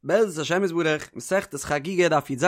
בעזרת השם יתברך, מסכת חגיגה דף י"ז,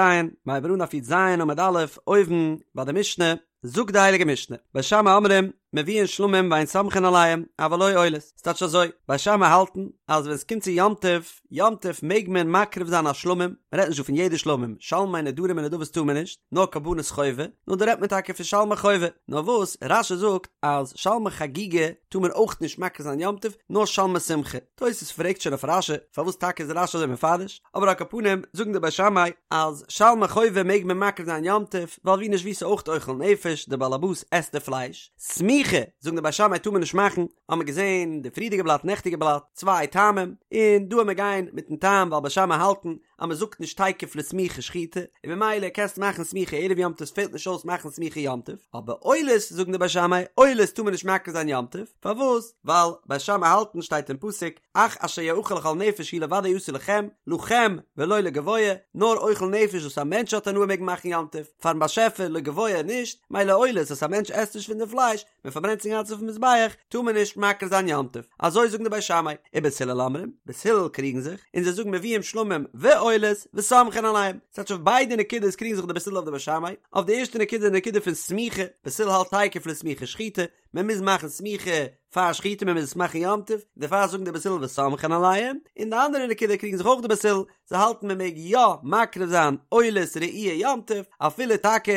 מ'הייבט אן דף י"ז עמוד א', אויבן ביי די משנה, זאגט די הייליגע משנה, בית שמאי אומרים, מביאין שלמים ואין סומכין עליהם, אבל לא עולות, ס'טייטש אזוי, בית שמאי האלטן אז ווען ס'קומט צו יום טוב, יום טוב מעג מען מקריב זיין א שלמים, מ'רעדט נישט דא פון יעדע שלמים, שלמי נדרים און נדבות טאר מען נישט, נאר קרבנות חובה, נאר דא רעדט מען טאקע פון שלמי חובה, נאר וואס רש"י זאגט אז שלמי חגיגה טאר מען אויך נישט מקריב זיין יום טוב, נאר שלמי שמחה. תוס' פרעגט שוין אויף רש"י פארוואס טאקע איז רש"י אזוי מפרש, אבער על כל פנים זאגן די בית שמאי אז שלמי חובה מעג מען מקריב זיין יום טוב, ווייל ווי נישט ווי ס'איז אויך אוכל נפש, די בעל הבית עסט די פלייש, סמיכה זאגן די בית שמאי טאר מען נישט מאכן, האמער געזען די פריערדיגע בלאט נעכטיגע בלאט צוויי טעמים, און דא עמער גיין מיטן טעם ווייל בית שמאי האלטן אז מען זאגט נישט תיכף לסמיכה שחיטה, און ממילא קענסטו מאכן סמיכה ערב יום טוב ס'פעלט נישט אויס מאכן סמיכה יום טוב, אבער עולות זאגן די בית שמאי עולות טאר מען נישט מקריב זיין יום טוב, פארוואס? ווייל בית שמאי האלטן שטייט אין פסוק אך אשר יאכל לכל נפש הוא לבדו יעשה לכם, לכם ולא לגבוה, נאר אוכל נפש וואס א מענטש האט הנאה מעג מען מאכן יום טוב, פארן באשעפער לגבוה נישט, מילא עולות וואס א מענטש עסט נישט פון די פלייש, מען פארברענט עס אינגאנצן אויפן מזבח, טאר מען נישט מקריב זיין יום טוב, אזוי זאגן די בית שמאי, ובית הלל אומרים, בית הלל קריגן זיך, און זיי זאגן מביאים שלמים ועולות וסומכין עליהם, ס'טייטש אויף ביידע נקודות קריגן זיך די בית הלל אויף די בית שמאי, אויף די ערשטע נקודה די נקודה פון סמיכה, בית הלל האלט תיכף לסמיכה שחיטה, מען מוז מאכן סמיכה פאר שחיטה מען מוז עס מאכן יום טוב, דערפאר זאגן די בית הלל וסומכין עליהם, און די אנדערע נקודה קריגן זיך אויך די בית הלל, זיי האלטן מען מעג יא מקריב זיין עולת ראי' יום טוב, אפילו טאקע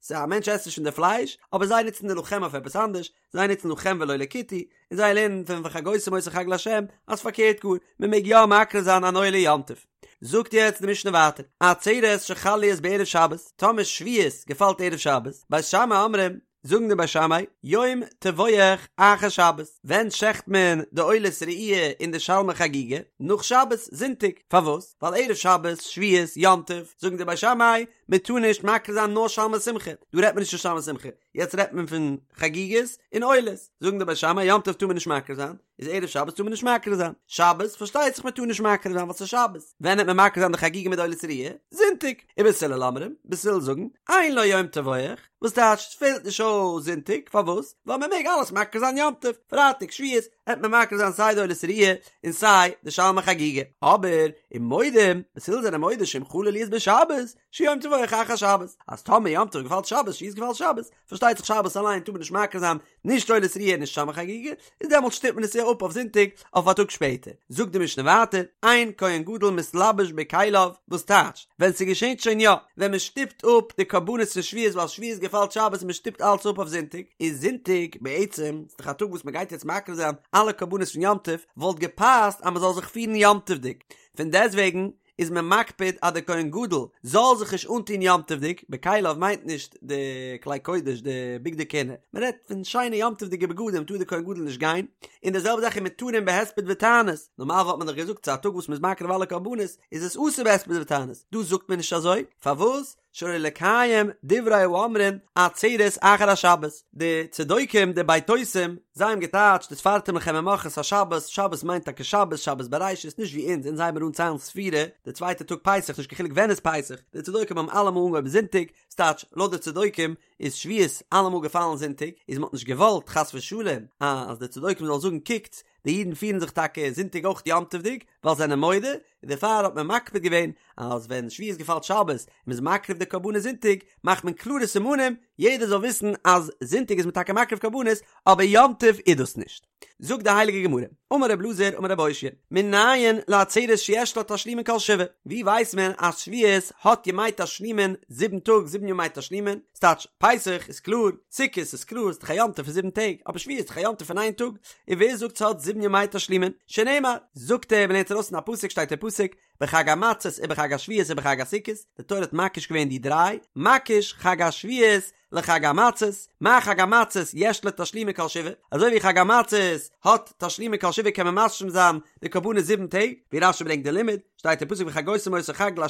ס'איז א מענטש עסט נישט פון די פלייש, אבער זיי נוצן די לכם אויף עפעס אנדערש, זיי נוצן לכם ולא לכותי, און זיי לערנען פון וחגותם אותו חג לה' אז פארקערט גאר, מען מעג יא מקריב זיין אן עולה יום טוב. זאגט יעצט די משנה ווייטער, עצרת שחל להיות בערב שבת, טאמער שבועות געפאלט ערב שבת, בית שמאי אומרים, זאגן די בית שמאי, יום טבוח אחר שבת, ווען שעכט מען די עולת ראי' און די שלמי חגיגה? נאך שבת, זונטאג, פארוואס? ווייל ערב שבת, שבועות, יום טוב, זאגן די בית שמאי, מען טאר נישט מקריב זיין נאר שלמי שמחה, דא רעדט מען נישט פון שלמי שמחה, יעצט רעדט מען פון חגיגות און עולות, זאגן די בית שמאי, יום טוב טאר מען נישט מקריב זיין, איז ערב שבת טאר מען נישט מקריב זיין, שבת פארשטייט זיך מען טאר נישט מקריב זיין ווייל ס'איז שבת, ווען העט מען מקריב זיין די חגיגה מיט די עולת ראי'? זונטאג, ובית הלל אומרים, בית הלל זאגן, אין לו יום טבוח, וואס טייטש ס'פעלט נישט אויס זונטאג, פארוואס? ווייל מען מעג אלעס מקריב זיין יום טוב, פרייטאג שבועות העט מען מקריב זיין סיי די עולת ראי' און סיי די שלמי חגיגה, אבער ומודים, בית הלל זענען מודה שאם חלה להיות בשבת, שיום טבוח אחר שבת, אז טאמער יום טוב געפאלט שבת, שבועות געפאלט שבת, פארשטייט זיך שבת אליין טאר מען נישט מקריב זיין נישט עולת ראי' נישט שלמי חגיגה, איז דעמאלט שטופט מען עס אפ אויף זונטאג אויף א טאג שפעטער. זאגט די משנה ווייטער, אין כהן גדול מתלבש בכליו, וואס טייטש, ווען ס'געשענט שוין יא, ווען מען שטופט אפ די קרבנות פון שבועות ווייל שבועות געפאלט שבת און מען שטופט אלץ אפ אויף זונטאג, איז זונטאג בעצם, ס'איז דאך א טאג וואס מען גייט יעצט מקריב זיין אלע קרבנות פון יום טוב, וואלט געפאסט אז מען זאל זיך פירן יום טוב'דיג, פון דעסטוועגן איז מען מקפיד אז דער כהן גדול זאל זיך נישט אנטון יום טוב'דיג, בכליו מיינט נישט די כלי קודש די בגדי כהונה, מען רעדט פון שיינע יום טוב'דיגע בגדים טאר דער כהן גדול נישט גיין, און די זעלבע זאך ומותרין בהספד ותענית, נארמאל וואלט מען דאך געזאגט ס'איז א טאג וואס מ'איז מקריב אלע קרבנות איז עס אסור בהספד ותענית, דא זאגט מען נישט אזוי, פארוואס? שלא לקיים דברי האומרים עצרת אחר השבת, די צדוקים די בייתוסים זיי האבן געטייטשט וספרתם לכם ממחרת השבת, שבת מיינט טאקע שבת, שבת בראשית, נישט ווי אונז, אונז הייבן אן ציילן ספירה די צווייטע טאג פסח, נישט קיין חילוק ווען איז פסח, די צדוקים האבן אלעמאל אנגעהויבן זונטאג, ס'טייטש לויט די צדוקים איז שבועות אלעמאל געפאלן זונטאג, איז מ'האט נישט געוואלט חס ושלום אז די צדוקים זאלן זאגן קוקטס די אידן פירן זיך טאקע זונטאג אויך יום טוב'דיג ווייל זיי זענען מודה, און דערפאר האט מען מקפיד געווען אז ווען שבועות געפאלט שבת און מ'איז מקריב די קרבנות זונטאג מאכט מען קלארע סימנים יעדער זאל וויסן אז זונטאג איז מען טאקע מקריב קרבנות אבער יום טוב איז דאס נישט. זאגט די הייליגע גמרא, אמר רב אלעזר אמר רב אושעיא, מנין לעצרת שיש לה תשלומין כל שבעה, ווי ווייסט מען אז שבועות האט ימי תשלומין זיבן טאג זיבן ימי תשלומין, ס'טייטש פסח איז קלאר, סוכות איז קלאר, ס'איז דאך א יום טוב פון זיבן טעג, אבער שבועות איז דאך א יום טוב פון איין טאג, און ווער זאגט ס'האט זיבן ימי תשלומין? שנאמר, זאגט ער, מ'לערנט ארויס אין א פסוק שטייט אין פסוק, בחג המצות ובחג השבועות ובחג הסוכות, די תורה האט מקיש געווען די דריי, מקיש חג השבועות לחג המצות, מה חג המצות יש לו תשלומין כל שבעה, אזוי ווי חג המצות האט תשלומין כל שבעה קען מען משלים זיין די קרבנות זיבן טעג, ווי רש"י ברענגט די לימוד, שטייט אין פסוק וחגותם אותו חג לה'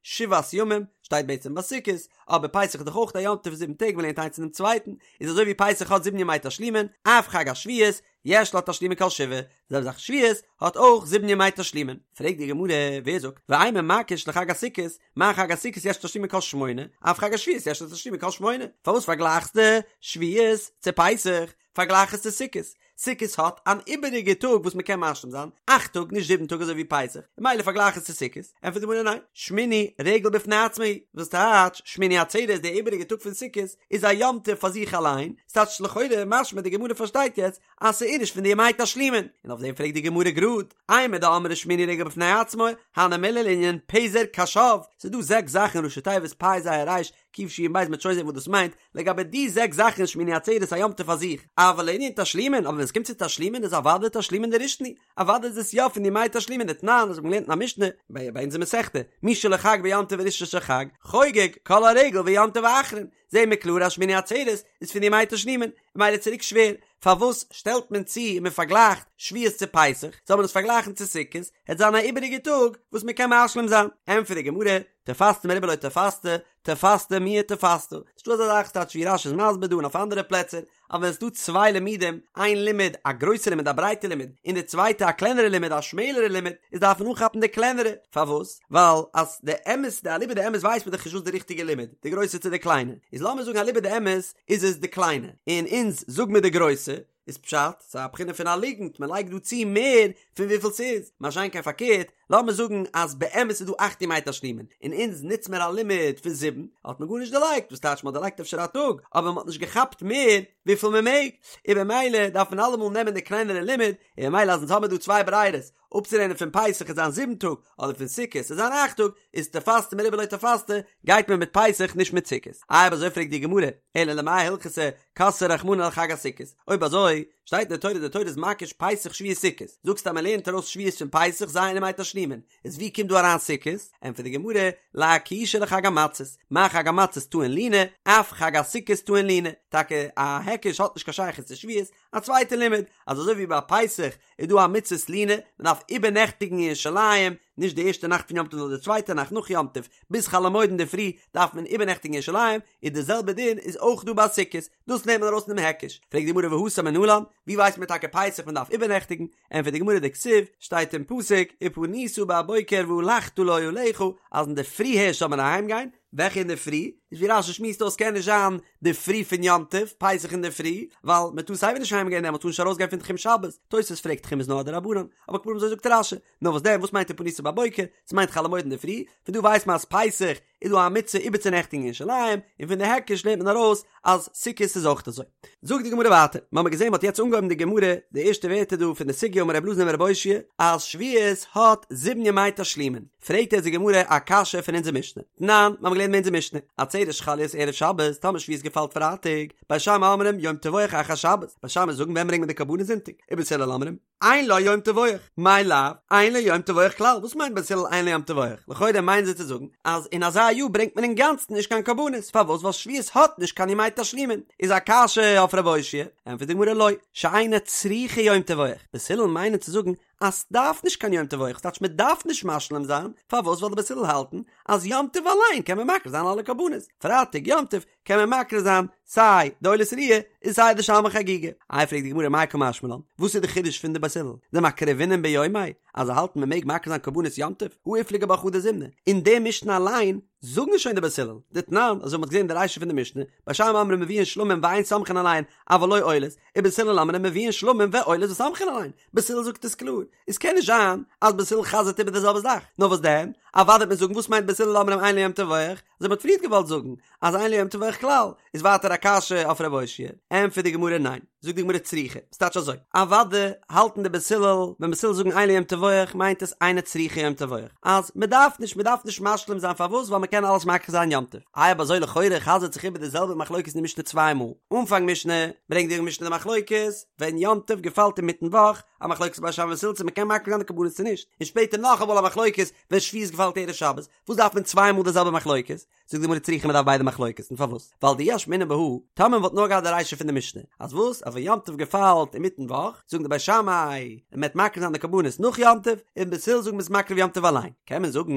שבעת ימים, שטייט בעצם ביי סוכות, אבער פסח איז דאך אויך א יום טוב פון זיבן טעג מ'לערנט איינס פונעם צווייטן, איז אזוי ווי פסח האט זיבן ימי תשלומין, אף חג השבועות יש לו תשלומין כל שבעה, די זעלבע זאך שבועות האט אויך זיבן ימי תשלומין. פרעגט די גמרא, ווער זאגט, ואימא מקיש לחג הסוכות, מה חג הסוכות יש לו תשלומין כל שמונה, אף חג השבועות יש לו תשלומין כל שמונה, פארוואס פארגלייכסטו שבועות צו פסח, פארגלייך עס צו סוכות? סוכות האט אן איבעריגע טאג וואס מען קען משלים זיין, אכט טאג נישט זיבן טאג אזוי ווי פסח, ממילא פארגלייך עס צו סוכות, ענטפערט די גמרא ניין, שמיני רגל בפני עצמו הוא, וואס טייטש שמיני עצרת די איבעריגע טאג פון סוכות איז א יום טוב פאר זיך אליין, ס'טייטש לכאורה משמע די גמרא פארשטייט יעצט אז ס'איז נישט פון די ימי תשלומין, און אויף דעם פרעגט די גמרא גראד, אימר דאמרי שמיני רגל בפני עצמו, הני מילי לענין פזר קשב, ס'איז דא זעקס זאכן ראשי תיבות פ' ז' רי"ש ק' שין בית מ'וועט שוין זען וואס דאס מיינט, לגבי די זעקס זאכן איז שמיני עצרת א יום טוב פאר זיך, אבל לענין תשלומין, אבער ווען עס קומט צו תשלומין איז אוודאי תשלומין דראשון הוא, אוודאי איז עס יא פון די ימי תשלומין דתנן, אזוי האט מען געלערנט אין א משנה, ביי אונזער מסכתא, מי שלא חג ביום טוב הראשון של חג, חוגג כל הרגל ויום טוב האחרון, זעהן מיר קלאר אז שמיני עצרת איז פון די ימי תשלומין, ממילא צוריק שווער, פארוואס שטעלט מען צו און מען פארגלייכט שבועות צו פסח, זאל מען עס פארגלייכן צו סוכות, העט זיין א איבעריגע טאג וואס מען קען משלים זיין, ענטפערט די גמרא, תפסת מרובה לא תפסת, תפסת מועט תפסת, ס'נישטא אזא זאך ס'טייטש ווי רש"י איז מסביר דא און אויף אנדערע פלעצער, אז ווען ס'דא צוויי לימודים, איין לימוד א גרויסע לימוד א ברייטע לימוד, און די צווייטע א קלענערע לימוד א שמעלערע לימוד, איז דארף מען אנכאפן די קלענערע, פארוואס? ווייל אז די אמת די אליבא דאמת ווייסט מען דאך נישט וואס די ריכטיגע לימוד, די גרויסע צו די קליינע, איז לאמיר זאגן אליבא דאמת איז עס די קליינע, און אונז זאג מיר די גרויסע, איז פשט, ס'איז א בחינה פון א ליגנט, מען לייגט דא צו מער פון וויפיל ס'איז, מה שאין כן פארקערט, לאמיר זאגן אז באמת איז דא אכט ימי תשלומין, און אונז נוץ מיר א לימוד פון זיבן, האט מען גארנישט דערלייגט, וואס טייטש מען האט דערלייגט אפשר א טאג, אבער מען האט נישט געכאפט מער וויפיל מען מעג, און במילא דארף מען אלעמאל נעמען די קלענערע לימוד, און במילא אז אונז האמיר דא צוויי ברירות, אפצולערנען פון פסח עט זיין זיבן טאג, אדער פון סוכות עט זיין אכט טאג, איז תפסת מרובה לא תפסת, גייט מען מיט פסח נישט מיט סוכות. איי אויב אזוי פרעגט די גמרא, אלא למאי הלכתא כתביה רחמנא לחג הסוכות, אויב אזוי שטייט אין די תורה די תורה איז מקיש פסח שבועות סוכות, זאגסטו אז מען לערנט ארויס שבועות פון פסח ז' ימי תשלומין, איז ווי קומט דא אריין סוכות? ענטפערט די גמרא, לאקושיה לחג המצות, מה חג המצות טעון לינה, אף חג הסוכות טעון לינה, טאקע א היקש האט נישט קיין שייכות צו שבועות, א צווייטע לימוד, אז אזוי ווי ביי פסח איז דא א מצות לינה, מען דארף איבערנעכטיגן אין ירושלים, נישט די ערשטע נאכט פון יום טוב נאר די צווייטע נאכט נאך יום טוב, ביז חול המועד אינדערפרי דארף מען איבערנעכטיגן אין ירושלים, איז די זעלבע דין איז אויך דא ביי סוכות, דאס נעמט מען ארויס פונעם היקש. פרעגט די גמרא והתם מנלן, ווי ווייסט מען טאקע פסח מען דארף איבערנעכטיגן? ענטפערט די גמרא דכתיב, שטייט אין פסוק, ופנית בבוקר והלכת לאהליך, אז אינדערפרי הערשט זאל מען אהיימגיין, וועלכע אינדערפרי? איז ווי רש"י שמועסט אויס קען נישט זיין די פרי פון יום טוב, פסח אינדערפרי, ווייל מען טאר סייווי נישט אהיימגיין דעמאלט טאר נישט ארויסגיין פון תחום שבת, תוס' פרעגט תחום איז נאר א דרבנן, אבער על כל פנים אזוי זאגט רש"י, נאר וואס דען וואס מיינט ופנית בבוקר? ס'מיינט חול המועד אינדערפרי, פון דא ווייסט מען אז פסח איז דא א מצוה איבערצונעכטיגן אין ירושלים, און פון די היקש לערנט מען ארויס אז סוכות איז אויך אזוי. זאגט די גמרא ווייטער, מ'האמיר געזען מ'האט יעצט אנגעהויבן די גמרא, די ערשטע ווערטער דא פון די סוגיא אמר רב אלעזר אמר רב אושעיא, אז שבועות האט זיבן ימי תשלומין, פרעגט יעצט די גמרא א קשיא פון אונזער משנה, תנן, מ'האמיר געלערנט אין אונזער משנה, עצרת שחל להיות ערב שבת, טאמער שבועות געפאלט פרייטאג, בית שמאי אומרים יום טבוח אחר שבת, בית שמאי זאגן ווען ברענגט מען די קרבנות זונטאג, ובית הלל אומרים, אין לו יום טבוח, מאי לאו, אין לו יום טבוח כלל, וואס מיינט בית הלל אין לו יום טבוח? לכאורה מיינען זיי צו זאגן אז אין אזא יאר ברענגט מען אינגאנצן נישט קיין קרבנות, פארוואס? ווייל שבועות האט נישט קיין ימי תשלומין, איז א קשיא אויף רב אושעיא, ענטפערט די גמרא לא, שאינה צריכה יום טבוח, בית הלל מיינען צו זאגן אז סדארף נישט קיין יום טבוח, ס'טייטש מ'דארף נישט משלים זיין, פארוואס? ווייל די בית הלל האלטן אז יום טוב אליין קען מען מקריב זיין אלע קרבנות, פרייטאג יום טוב קען מען מקריב זיין סיי די עולת ראיה און סיי די שלמי חגיגה. איי פרעגט די גמרא מאי קא משמע לן, וואס איז די חידוש פון די בית הלל, דמקרבינן ביומיה, אז זיי האלטן מען מעג מקריב זיין קרבנות יום טוב, הא איפליגו בה חדא זימנא, אין די משנה אליין זאגן שוין די בית הלל, דתנן, אזוי ווי מ'האט געזען די רישא פון די משנה, בית שמאי אומרים מביאין שלמים ואין סומכין עליהן, אבל לא עולות, ובית הלל אומרים מביאין שלמים ועולות וסומכין עליהן, בית הלל זאגט עס קלאר, עס קען נישט זיין אז בית הלל חזר'ט איבער די זעלבע זאך, נאר וואס דען? אוודאי וועט מען זאגן וואס מיינט בית הלל אומרים אין לו יום טבוח, אזוי מ'האט פריערט געוואלט זאגן אז אין לו יום טבוח כלל, איז ווייטער א קשיא אויף רב אושעיא, ענטפערט די גמרא ניין, זאגט די גמרא צריכא, ס'טייטש אזוי, אוודאי האלטן די בית הלל, ווען בית הלל זאגן אין לו יום טבוח מיינט עס אינה צריכה יום טבוח, אז מ'דארף נישט, מ'דארף נישט משלים זיין פארוואס ווייל מ'קען אלעס מקריב זיין יום טוב, איי אויב אזוי לכאורה חזר'ט זיך איבער די זעלבע מחלוקת אין די משנה צוויי מאל, אנפאנג משנה ברענגט די משנה די מחלוקת ווען יום טוב געפאלט אינמיטן וואך, א מחלוקת בית שמאי ובית הלל צו מ'קען מקריב זיין די קרבנות צו נישט, און שפעטער נאכאמאל א מחלוקת ווען שבועות געפאלט ערב שבת, וואס דארף מען צוויי מאל די זעלבע מחלוקת? זאגט די גמרא צריכא מ'דארף ביידע מחלוקת'ן, פארוואס? ווייל דאי אשמעינן בהא, טאמער מ'וואלט נאר געהאט די רישא פון די משנה, אז וואס? אז ווען יום טוב געפאלט אינמיטן וואך, זאגן די בית שמאי, מ'עט מקריב זיין די קרבנות נאך יום טוב, און בית הלל זאגן מ'איז מקריב יום טוב אליין, קען מען זאגן,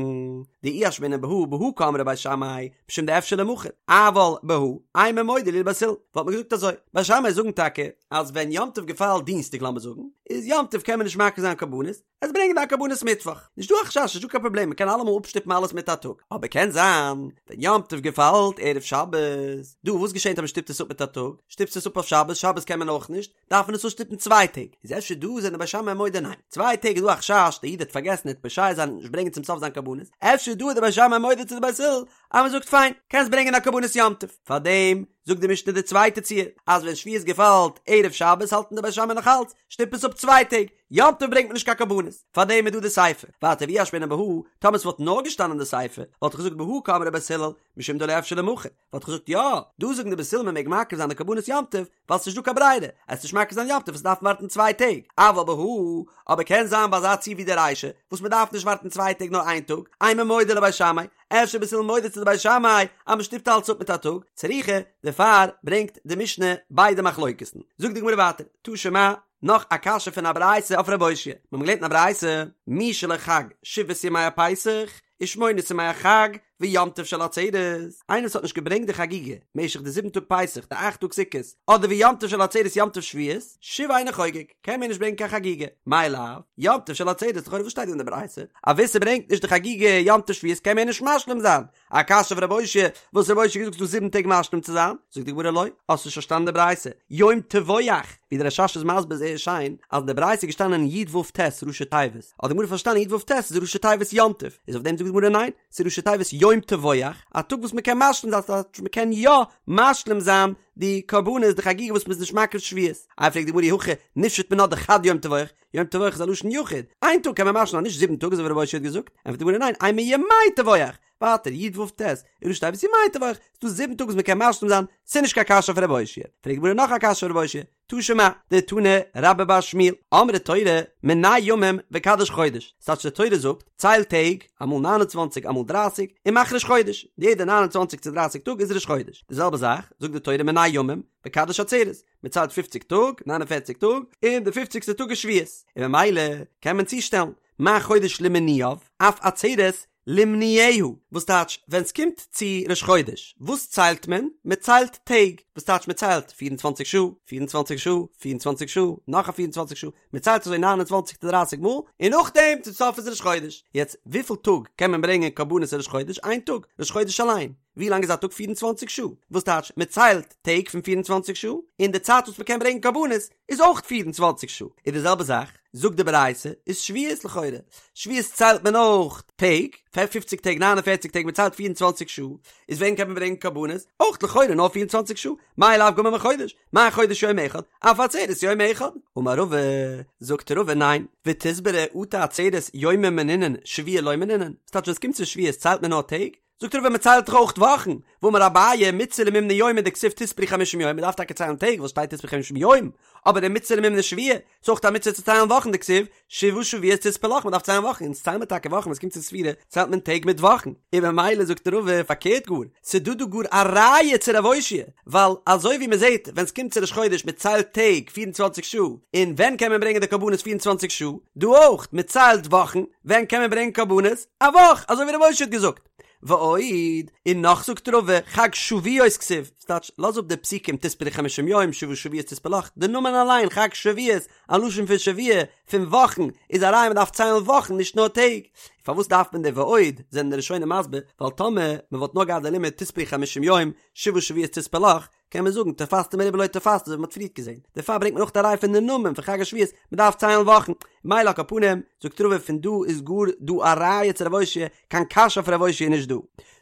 דאי אשמעינן בהא, בהא קאמרי בית שמאי, משום דאפשר למחר, אבל בהא, אימא מודה להו לבית הלל, וואלט מען געזאגט אזוי, בית שמאי זאגן טאקע, אז ווען יום טוב געפאלט דינסטאג לאמיר זאגן, איז יום טוב קען מען נישט מקריב זיין קרבנות, עס ברענגען די קרבנות מיטוואך, נישט דא א חשש, נישט דא קיין פראבלעם, מען קען אלעמאל אפשטופן אלעס מיט א טאג, אבער קען זיין ווען יום. יום טוב געפאלט ערב שבת, דא וואס געשענט אז מען שטופט עס אפ מיט א טאג? שטופסט עס אפ אויף שבת, שבת קען מען אויך נישט, דארף מען עס אפשטופן צוויי טעג, איז אפשר דא זענען די בית שמאי מודה ניין, צוויי טעג איז דא א חשש די איד האט פארגעסן ער וועט פושע זיין און נישט ברענגען צום סוף זיין קרבנות, אפשר דא איז די בית שמאי מודה צו די בית הלל אז מען זאגט פיין, קענסט ברענגען א קרבנות יום טוב, פארדעם זאגט די משנה די צווייטע ציור, אז ווען שבועות געפאלט ערב שבת האלטן די בית שמאי נאך אלץ, שטופ עס אפ צוויי טעג, יום טוב ברענגט מען נישט קיין קרבנות, פארדעם איז דא די סיפא, ווייטער ואי אשמעינן בהא, טאמער ס'וואלט נאר געשטאנען די סיפא, וואלט איך געזאגט בהא קאמרי בית הלל, משום דלא אפשר למחר, וואלט איך געזאגט יא, דא זאגן די בית הלל מען מעג מקריב זיין די קרבנות יום טוב, ווייל ס'נישט דא קיין ברירה, עסט נישט מקריב זיין יום טוב עסט דארפן ווארטן צוויי טעג, אבל בהא, אבער קען זיין ביי אזא ציור ווי די רישא, וואס מען דארף נישט ווארטן צוויי טעג נאר איין טאג, אימא מודו לבית שמאי, אפשר בית הלל מודה צו די בית שמאי אז מען שטופט אלץ אפ מיט א טאג, צריכא, דערפאר ברענגט די משנה ביידע מחלוקת'ן. זאגט די גמרא ווייטער, תא שמע, נאך א קשיא פון א ברייתא אויף רב אושעיא, מיר האבן געלערנט אין א ברייתא, מי שלא חג שבעת ימי הפסח ושמונת ימי החג ויום טוב של עצרת, איינער וואס האט נישט געברענגט די חגיגה משך די זיבן טאג פסח, די אכט טאג סוכות, אדער ויום טוב של עצרת יום טוב שבועות, שוב אינו חוגג, קען מער נישט ברענגען קיין חגיגה, מאי לאו, יום טוב של עצרת, לכאורה וואס שטייט דא אין די ברייתא? אז ווער ס'ברענגט נישט די חגיגה יום טוב שבועות קען מער נישט משלים זיין, א קשיא אויף רב אושעיא, וואס רב אושעיא האט געזאגט ס'דא זיבן טעג משלים צו זיין, זאגט די גמרא לא, האסט נישט פארשטאנען די ברייתא, יום טבוח, ווי דער רש"ש איז מסביר זייער שיין, אז אין די ברייתא איז געשטאנען י ו ט ראשי תיבות, האט די גמרא פארשטאנען י ו ט איז ראשי תיבות יום טוב, איז אויף דעם זאגט די גמרא ניין, ס'איז ראשי תיבות יום טבוח, א טאג וואס מ'קען משלים זיין, ס'טייטש מ'קען יא משלים זיין די קרבנות די חגיגה וואס מ'איז נישט מקריב שבועות, איי פרעגט די גמרא אי הכי ניפשוט מינה דחד יום טבוח, יום טבוח איז א לשון יחיד, איין טאג קען מען משלים זיין נישט זיבן טאג אזוי ווי רב אושעיא האט געזאגט, ענטפערט די גמרא ניין, אימא ימי טבוח, ווייטער י ו ט איז ראשי תיבות ימי טבוח, ס'דא זיבן טאג וואס מ'קען משלים זיין, ס'איז נישט קיין קשיא אויף רב אושעיא, פרעגט די גמרא נאך א קשיא אויף רב אושעיא, תא שמע, דתני רבה בר שמואל, אמרה תורה, מנה ימים וקדש חודש, ס'טייטש די תורה זאגט, צייל טעג, אמאל נײַן און צוואַנציק אמאל דרײַסיק, און מאך ראש חודש, יעדע נײַן און צוואַנציק צו דרײַסיק טאג איז ראש חודש, די זעלבע זאך, זאגט די תורה מנה ימים, וקדש עצרת, מען ציילט פופציג טאג, ניין און פערציג טאג, און די פופציגסטע טאג איז שבועות, און ממילא קען מען צושטעלן, מה חודש למנויו, אף עצרת למנויה, וואס טייטש ווען ס'קומט צו ראש חודש, וואס ציילט מען? מען ציילט טעג, וואס טייטש מען ציילט פיר און צוואנציג שעה, פיר און צוואנציג שעה, פיר און צוואנציג שעה, נאך א פיר און צוואנציג שעה, מען ציילט אזוי ניין און צוואנציג צו דרייסיג מאל, און נאכדעם צום סוף איז ראש חודש. יעצט וויפיל טאג קען מען ברענגען קרבנות ראש חודש? איין טאג, ראש חודש אליין. ווי לאנג איז א טאג? 24 שעה, וואס טייטש מען ציילט טעג פון 24 שעה, און די צייט וואס מען קען ברענגען קרבנות איז אויך 24 שעה, איז די זעלבע זאך זאגט די ברייתא איז שבועות לכאורה, שבועות ציילט מען אויך טעג, פופציג טעג 49 טעג מען ציילט 24 שעה, איז ווען קען מען ברענגען קרבנות? אויך לכאורה נאר 24 שעה, מאי לאו גמר מחודש, מה חודש יום אחד, אף עצרת יום אחד. אמר רבא, זאגט רבא ניין, ותסברא אטו עצרת יומי מנינן שבועי לא מנינן, ס'טייטש ווען ס'קומט צו שבועות ציילט מען נאר טעג? זאגט רבא מען ציילט דאך אויך וואכן, והאמר אביי מצוה למימני יומי דכתיב תספרו חמישים יום, מען דארף טאקע ציילן טעג ווייל שטייט תספרו חמישים יום, אבער ומצוה למימני שבועי, ס'איז אויך א מצוה צו ציילן וואכן דכתיב שבעה שבועות תספר לך, מען דארף ציילן וואכן, אונז ציילן מיר טאקע וואכן ווען ס'קומט צו ספירה ציילט מען טעג מיט וואכן, און ממילא זאגט רבא פארקערט גאר, ס'דא דא גאר א ראיה צו רב אושעיא, ווייל אזוי ווי מען זעט ווען ס'קומט צו ראש חודש מען ציילט טעג 24 שעה, און ווען קען מען ברענגען די קרבנות 24 שעה, דא אויך, מען ציילט וואכן, ווען קען מען ברענגען קרבנות? א וואך, אזוי ווי רב אושעיא האט געזאגט. ועוד, און נאך זאגט רבא, חג שבועות כתיב, ס'טייטש, לאז אפ די פסוקים תספרו חמשים יום, שבעה שבועות תספר לך, די נאמען אליין חג שבועות, א לשון פון שבוע, פון וואכן, איז א ראיה מ'דארף ציילן וואכן נישט נאר טעג. פארוואס דארף מען די ועוד, זענען די ראשונים מסביר, ווייל טאמער מ'וואלט נאר געהאט די לימוד תספרו חמשים יום, שבעה שבועות תספר לך, קען מען זאגן תפסת מרובה לא תפסת אזוי ווי מ'האט פריערט געזען, דערפאר ברענגט מען אויך א ראיה פון די נאמען פון חג השבועות, מ'דארף ציילן וואכן, מילא על כל פנים, זאגט רבא פון דא איז גאר דא א ראיה צו רב אושעיא, קיין קשיא אויף רב אושעיא איז נישט דא.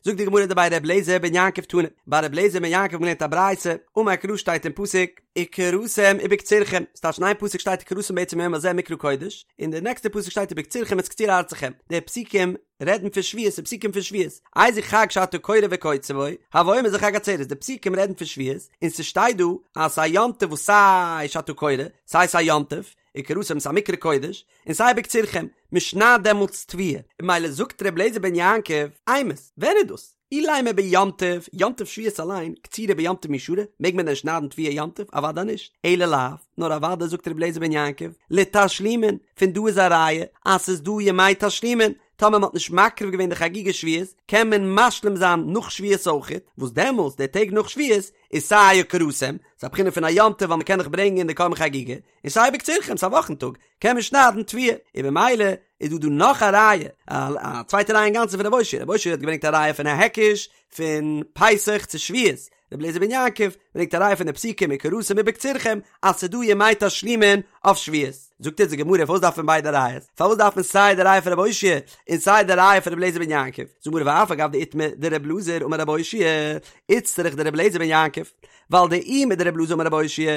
זאגט די גמרא דבי ר' אליעזר בן יעקב תנא, ביי ר' אליעזר בן יעקב האט מען געלערנט א ברייתא, אמר קרא שטייט אין פסוק, וקראתם ובקצירכם, ס'טייטש אין איין פסוק שטייט וקראתם בעצם היום הזה מקרא קודש, אין די נעקסטע פסוק שטייט ובקצירכם את קציר ארצכם, די פסוקים רעדן פון שבועות, די פסוקים פון שבועות, איזהו חג שאתה קורא וקוצר בו, הוי אומר זה חג עצרת, די פסוקים רעדן פון שבועות, און ס'שטייט דא אז ס'איז א יום טוב וואס סיי שאתה קורא, סיי ס'איז א יום טוב, וקראתם ס'איז א מקרא קודש, און סיי ובקצירכם, מ'שניידט דעמאלטס תבואה, און ממילא זאגט ר' אליעזר בן יעקב, אימת, ווען איז דאס? אילימא ביום טוב, יום טוב שבועות אליין, קצירה ביום טוב מי שרי, מעג מען דען שניידן תבואה יום טוב? אוודאי נישט, אלא לאו, נאר אוודאי זאגט ר' אליעזר בן יעקב, לתשלומין, פון דא איז א ראיה אז ס'איז דא ימי תשלומין, טאמער מ'האט נישט מקריב געווען די חגיגה שבועות, קען מען משלים זיין נאך שבועות אויכעט, וואס דעמאלס די טעג נאך שבועות איז סיי וקראתם, ס'איז א בחינה פון א יום טוב ווייל מ'קען דאך ברענגען די קרבן חגיגה, און סיי ובקצירכם, ס'איז א וואכן טאג, קען מען שניידן תבואה, און במילא איז דא דא נאך א ראיה, א צווייטע ראיה אינגאנצן פון רב אושעיא, רב אושעיא האט געברענגט א ראיה פון א היקש פון פסח צו שבועות, רבי אליעזר בן יעקב ברענגט א ראיה פון די פסוקים וקראתם ובקצירכם אז ס'איז דא ימי תשלומין אויף שבועות. זאגט אונז די גמרא פארוואס דארף מען ביידע ראיות? פארוואס דארף מען סיי די ראיה פון רב אושעיא און סיי די ראיה פון רבי אליעזר בן יעקב? זאגט די גמרא ואף על גב דאיתמר דרבי אלעזר אמר רב אושעיא איצטריך דרבי אליעזר בן יעקב, ווייל דאי מדרבי אלעזר אמר רב אושעיא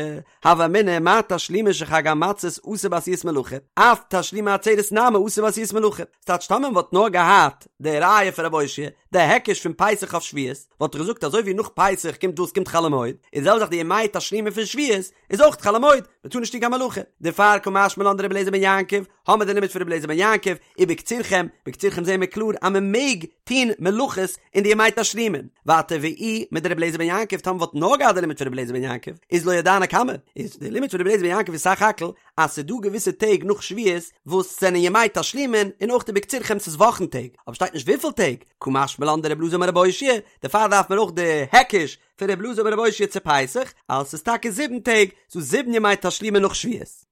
הוה אמינא מה תשלומין של חג המצות אסור בעשיית מלאכה, אף תשלומי עצרת נמי אסור בעשיית מלאכה. ס'טייטש טאמער מ'וואלט נאר געהאט די ראיה פון רב אושעיא, די היקש פון פסח אויף שבועות, וואלט איך געזאגט אזוי ווי נאך פסח קומט וואס קומט חול המועד, איז די זעלבע זאך די ימי תשלומין פון שבועות איז אויך חול המועד, מ'טאר נישט טון קיין מלאכה. דערפאר קא משמע לן דרבי אליעזר בן יעקב, האמער די לימוד פון רבי אליעזר בן יעקב, ובקצירכם, בקצירכם זעהן מיר קלאר אז מ'מעג טון מלאכות אין די ימי תשלומין. ווייטער ואי מדרבי אליעזר בן יעקב, טאמער מ'וואלט נאר געהאט די לימוד פון רבי אליעזר בן יעקב, איז לא ידענא כמה, איז די לימוד פון רבי אליעזר בן יעקב איז סך הכל אז ס'איז דא געוויסע טעג נאך שבועות וואס זענען ימי תשלומין און אויך ובקצירכם ס'איז וואכן טעג, אבער שטייט נישט וויפיל טעג, קא משמע לן דרבי אלעזר אמר רבי אושעיא, דערפאר דארף מען אויך די היקש פון רבי אלעזר אמר רבי אושעיא צו פסח, אז ס'איז טאקע זיבן טעג, ס'איז דא זיבן ימי תשלומין נאך שבועות.